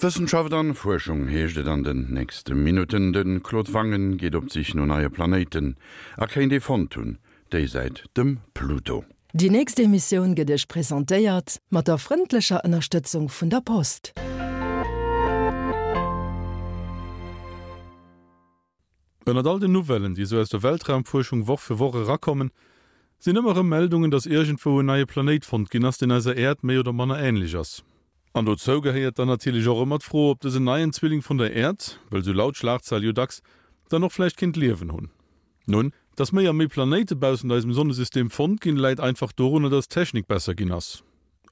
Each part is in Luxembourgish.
Wëssenschaft an Fuerschung heescht et an den nächste Minutten. De Claude Wangen geet op d'Sich no neie Planéiten a kéint ee fonnt hunn, déisäit dem Pluto. Déi nächst Emissioun gëtt Iech presentéiert mat der frëndlecher Ënnerstëtzung vun der Post. Ënnert all den Nouvellen, déi esou aus der Weltraumfuerschung Woch fir Woch erakommen, sinn ëmmer erëm Meldungen, dass iergendwou en neie Planéit fonnt ginn ass, deen eiser Äerd méi oder manner änlech ass. An dozou gehéiert dann natierlech och ëmmer d'Fro, ob dësen neien Zwilling vun der Äerd, wëll sou laut d'Schlagzeil jo dacks, dann och vläicht kéint Liewen hunn. Nun, dass méi a méi Planéite baussent eisem Sonnesystem fonnt ginn, läit einfach dorunner, dass d'Technik besser ginn ass.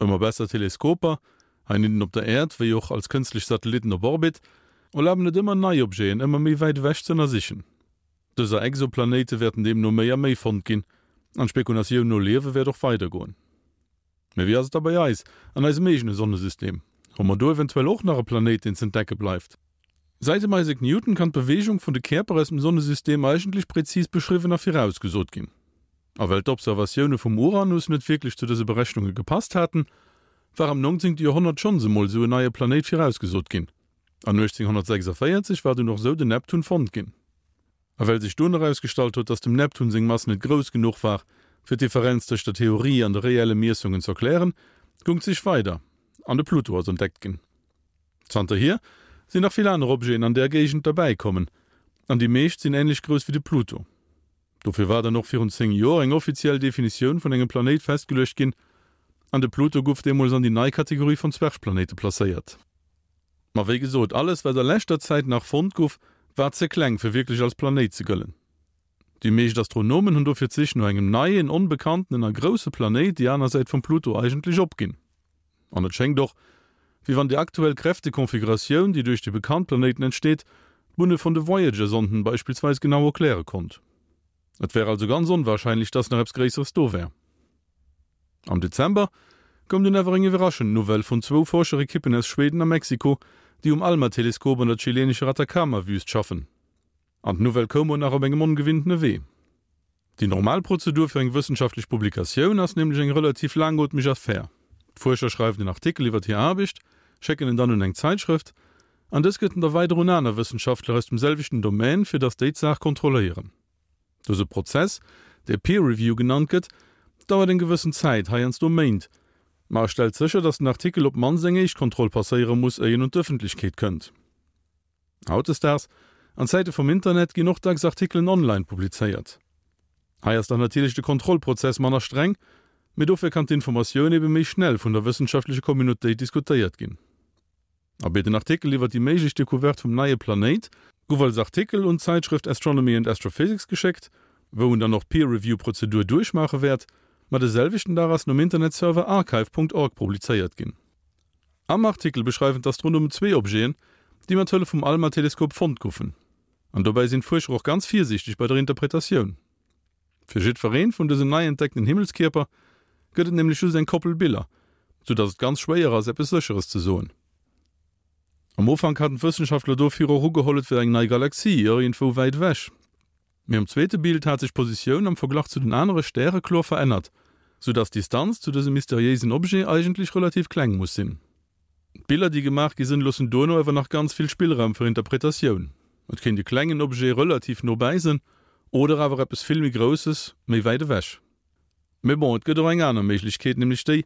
Ëmmer besser Teleskoper, Heinnidden op der Äerd, wéi och als kënstlech Satellitten op Orbit, erlaben et ëmmer nei Objeten ëmmer méi wäit ewech ze ënnersichen. Dëser Exoplanéite wäerten deemno méi a méi fonnt ginn, an d'Spekulatioun no Liewe wäert och weidergoen. Mee wéi ass et da bei eis, an eisem eegene Sonnesystem? Hu mer do eventuell och nach e Planéit, deen z'entdecke bleift? Säit dem Isaac Newton kann d'Beweegung vun de Käerper aus dem Sonnesystem eigentlech präzis beschriwwen a virausgesot ginn. A well d'Observatioune vum Uranus net wierklech zu dëse Berechnunge gepasst haten, war am 19. Joerhonnert schonns emol esou en neie Planéit virausgesot ginn. An 1846 war dunn och esou den Neptun fonnt ginn. A well sech dunn erausgestallt huet, datt dem Neptun seng Mass net grouss genuch war, fir d'Differenz tëscht der Theorie an de reelle Miessungen z'erklären, goung d'Sich weider an de Pluto ass entdeckt ginn. Zanterhier sinn nach vill aner Objeten an där Géigend derbäi kommen, an déi meescht sinn änlech grouss wéi de Pluto. Dofir war dann och virun 10 Joer eng offiziell Definitioun vun engem Planéit festgeluecht ginn, an de Pluto guff deemools an déi nei Kategorie vun Zwergplanéite placéiert. Ma wéi gesot, alles wat a leschter Zäit nach fonnt guff, war ze kleng fir wierklech als Planéit ze gëllen. Déi meescht Astronomen hunn dofir d'Sich no engem neien, onbekanntenen a grousse Planéit déi aner Säit vum Pluto eigentlech opginn. An et schéngt och, wéi wann déi aktuell Kräftekonfiguratioun, déi duerch déi bekannt Planéiten entsteet, d'Bunne vun de Voyager-Sonden beispillsweis genau erkläre konnt. Et wär also ganz onwarscheinlech, dass nach eppes Gréisseres do wär. Am Dezember koum dunn awer eng iwwerraschend Nouvelle vun zwou Forscherekippen aus Schweden a Mexiko, déi um ALMA-Teleskop an der chilenescher Atacama-Wüst schaffen. An d'Nouvelle koum och nach op engem ongewinntene Wee. Déi normal Prozedur fir eng wëssenschaftlech Publikatioun ass nämlech eng relativ laangootmeg Affär. D'Fuerscher schreiwen en Artikel iwwer hir Aarbecht, schécken en dann un eng Zäitschrëft, an dës gëtt en da weider un aner Wëssenschaftler aus dem selwechten Domaine, fir datt déi d'Saach kontrolléieren. Dëse Prozess, dee Peer Review genannt gëtt, dauert eng gewëssen Zäit, heiansdo Méint, ma e stellt sécher, datt den Artikel op d'mannst eng éischt Kontroll passéiere muss, éier en un d'Ëffentlechkeet kënnt. Hautdesdaags, an Zäite vum Internet, ginn och dacks Artikelen online publizéiert. Hei ass dann natierlech de Kontrollprozess manner streng, mee dofir kann d'Informatioun ebe méi schnell vun der wëssenschaftlecher Communautéit diskutéiert ginn. Abee, den Artikel iwwer déi méiglech Decouverte vum neie Planéit gouf als Artikel un d'Zäitschrëft Astronomy and Astrophysics geschéckt, wou en dann och d'Peer-Review-Prozedur duerchmaache wäert, ma de selwechten Dag ass en um Internetserver archive. Org publizéiert ginn. Am Artikel beschreiwen d'Astronomen zwee Objeten, déi mat Hëllef vum ALMA-Teleskop fonnt goufen. An dobäi sinn d'Fuerscher och ganz virsiichteg bei der Interpretatioun. Fir jiddweree vun dësen nei entdeckten Himmelskierper gëtt et nämlech just eng Koppel Biller, sou datt et ganz schwéier ass, eppes Sécheres ze soen. Am Ufank haten d'Wëssenschaftler dofir och ugeholl, et wär eng nei Galaxie, iergendwou wäit ewech. Mee um zweete Bild hat sech d'Positioun am Verglach zu den anere Stäre kloer verännert, sou dass d'Distanz zu dësem mysteriéisen Objet eigentlech relativ kleng muss sinn. D'Biller déi gemaach gi sënn loossen duerno awer nach ganz vill Spillraum fir Interpretatioun. Et kéint e klengen Objet relativ no bäi sënn oder awer eppes vill méi Grousses méi wäit ewech. Mee bon, et gëtt och eng aner Méiglechkeet, nämlech déi,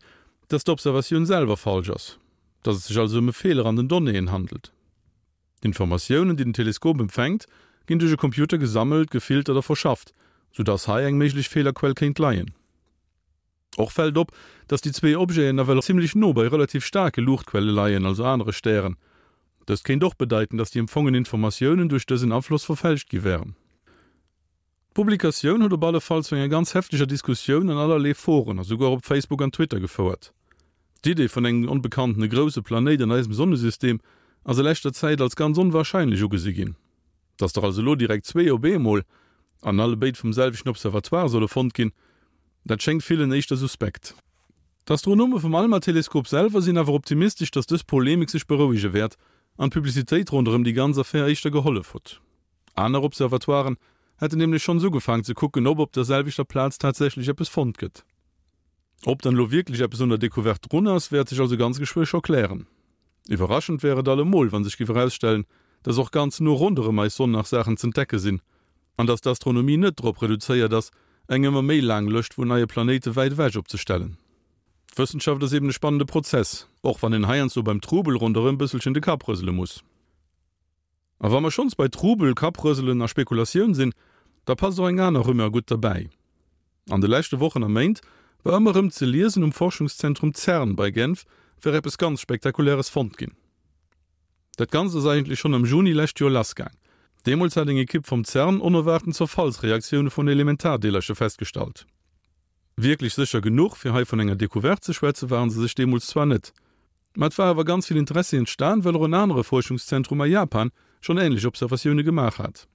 dass d'Observatioun selwer falsch ass, dass et sech also ëm e Feeler an den Donnéeën handelt. D'Informatiounen, déi den Teleskop empfänkt, ginn duerch e Computer gesammelt, gefiltert a verschafft, sou dass hei eng méiglech Feelerquell kéint leien. Och fält op, dass déi zwee Objeten nawell zimmlech no bei relativ staarke Luuchtquelle leien, also anere Stären. Dëst kéint och bedeiten, dass déi empfongen Informatiounen duerch dësen Afloss verfälscht gi wären. D'Publikatioun huet op alle Fall zu enger ganz hefteger Diskussioun an allerlee Foren a souguer op Facebook an Twitter gefouert. D'Idee vun engem onbekanntene grousse Planéit an eisem Sonnesystem ass a leschter Zäit als ganz onwarscheinlech ugesi ginn. Datt der also elo direkt zwee op eemol, an allebéid vum selwechten Observatoire solle fonnt ginn, dat schéngt villen éischter suspekt. D'Astronome vum ALMA-Teleskop selwer sinn awer optimistesch, datt dës Polemik sech berouege wäert an d'Publicitéit ronderëm déi ganz Affär éischter gehollef huet. Aner Observatoiren hätten nämlech schonns ugefaang ze kucken, ob op der selwechter Plaz tatsächlech eppes fonnt gëtt. Ob dann elo wierklech eppes un der Decouverte drun ass, wäert sech also ganz geschwë scho klären. Iwwerraschend wär et allemol, wa sech giff erausstellen, dass och ganz no ronderëm eis Sonn nach Saachen z'entdecke sinn, an dass d'Astronomie net drop reduzéiert ass, eng ëmmer méi laang Lëscht vun neie Planéite wäit ewech opzestellen. D'Wëssenschaft ass eben e spannende Prozess, och wann een heiansdo beim Trubel ronderëm bësselchen de Kapp rësele muss. A wa mer schonns bei Trubel, Kapprëselen a Spekulatioun sinn, da passt och eng aner Rumeur gutt derbäi. An de leschte Wochen a Méint war ëmmer erëm ze liesen, um Forschungszentrum CERN bei Genf wär eppes ganz Spektakuläres fonnt ginn. Dat Ganzt ass eigentlech schonn am Juni lescht Joer lassgaang. Deemools hat eng Ekipp vum CERN onerwaarten Zerfallsreaktioune vun Elementardeelercher festgestallt. Wierklech sécher genuch, fir hei vun enger Decouverte ze schwätzen, ware se sech deemools zwar net. Mä et war awer ganz vill Interessi entstan, well och en anere Fuerschungszentrum a Japan schonn änlech Observatioune gemaach hat.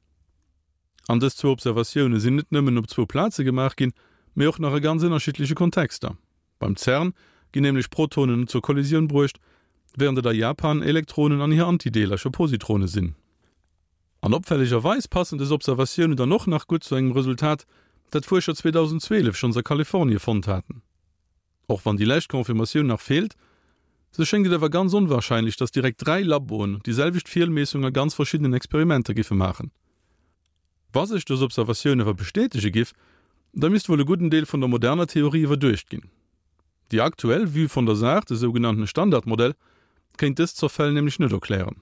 An dës zwou Observatioune sinn net nëmmen op zwou Plaze gemaach ginn, mee och nach a ganz ënnerschiddleche Kontexter. Beim CERN ginn nämlech Protonen zur Kollisioun bruecht, wärend et a Japan Elektronen an hir Antideelercher, Positrone sinn. An opfällegerweis passen dës Observatiounen dann och nach gutt zu engem Resultat, dat d'Fuerscher 2012 schonns a Kalifornie fonnt haten. Och wann déi lescht Confirmatioun nach feelt, sou schéngt et awer ganz onwarscheinlech, datt direkt 3 Laboen déi selwecht Feelmeessung a ganz verschiddenen Experimenter giffe maachen. Wa sech dës Observatioun awer bestätege giff, da misst wuel e gudden Deel vun der moderner Theorie iwwerduecht ginn. Déi aktuell Vue vun der Saach, de sougenannten Standardmodell, kéint dës Zerfäll nämlech net erklären.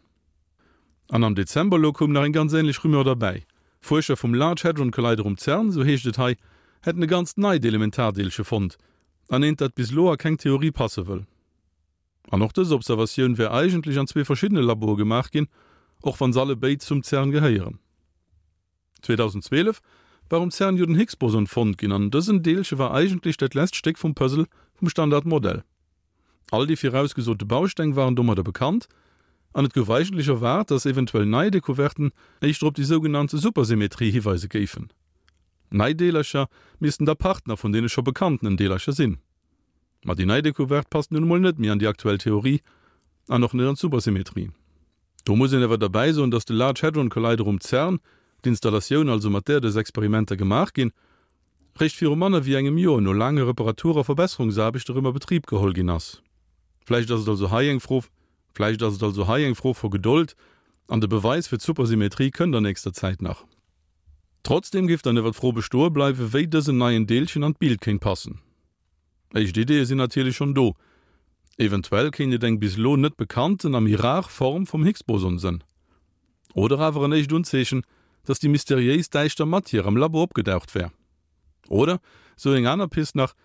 An am Dezember elo koum nach eng ganz änlech Rumeur derbäi. Fuerscher vum Large Hadron Collider um CERN, sou heescht et hei, hätten e ganzt neit Elementardeelche fonnt, an eent dat bis elo a keng Theorie passe wëll. An och dës Observatioun wär eigentlech an zwee verschiddene Laboe gemaach ginn, och wann se alle béid zum CERN gehéieren. 2012 war um CERN jo den Higgs-Boson fonnt ginn an dësen Deelche war eigentlech dat lesst Stéck vum Puzzle vum Standardmodell. All déi virausgesote Bausteng waren domadder bekannt an et gouf eigentlech erwaart, datt eventuell nei Decouverten éischter op déi sougenannte Supersymmetrie hiweise géifen. Nei Deelercher missten da Partner vun deene scho bekanntenen Deelercher sinn. Ma déi nei Decouverte passt nun emol net méi an déi aktuell Theorie an och net an d'Supersymmetrie. Do muss een awer derbäi soen, dass de Large Hadron Collider um CERN, d'Installatioun also mat där dës Experimenter gemaach ginn, réischt viru manner wéi engem Joer no laange Reparatur a Verbesserungsaarbechte rëm a Betrib geholl ginn ass. Vläicht ass et also hei eng Fro Vläicht ass et also hei eng Fro vu Gedold an de Beweis fir d'Supersymmetrie kënnt an nächster Zäit nach. Trotzdem géif dann ewer d'Fro bestoe bleiwe wéi dësen neien Deelchen an d'Bild kéint passen. Éischt Ideeë sinn natierlech schonn do. Eventuell kéint et eng bis elo net bekannten a méi rar Form vum Higgs-Boson sënn. Oder awer en éischt Unzeechen, dass déi mysteriéis däischter Matière am Labo opgedaucht wär. Oder, sou eng aner Pist nach,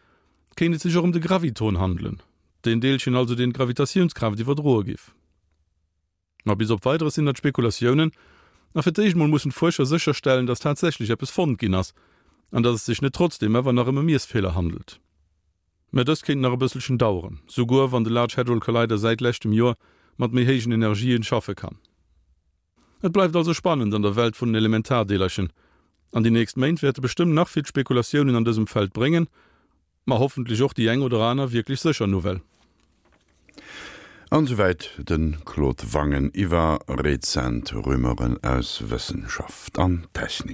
kéint et sech och ëm de Graviton handelen, deen Deelchen also deen d'Gravitatiounskraaft iwwerdroe giff. Ma bis op Weideres sinn dat Spekulatiounen, a fir d'éischt mol mussen d'Fuerscher sécherstellen, datt tatsächlech eppes fonnt ginn ass, an datt et sech net trotzdeem awer nach ëm e Miessfeeler handelt. Mä dëst kéint nach e bësselchen daueren, souguer wann de Large Hadron Collider säit leschtem Joer mat méi héijen Energien schaffe kann. Et bleift also spannend an der Welt vun den Elementardeelerchen, an déi nächst Méint wäerte bestëmmt nach vill Spekulatiounen an dësem Feld bréngen, Ma hoffentlech och déi eng oder aner wierklech sécher Nouvelle. An esouwäit de Claude Wangen iwwer rezent Rumeuren aus Wëssenschaft an Technik.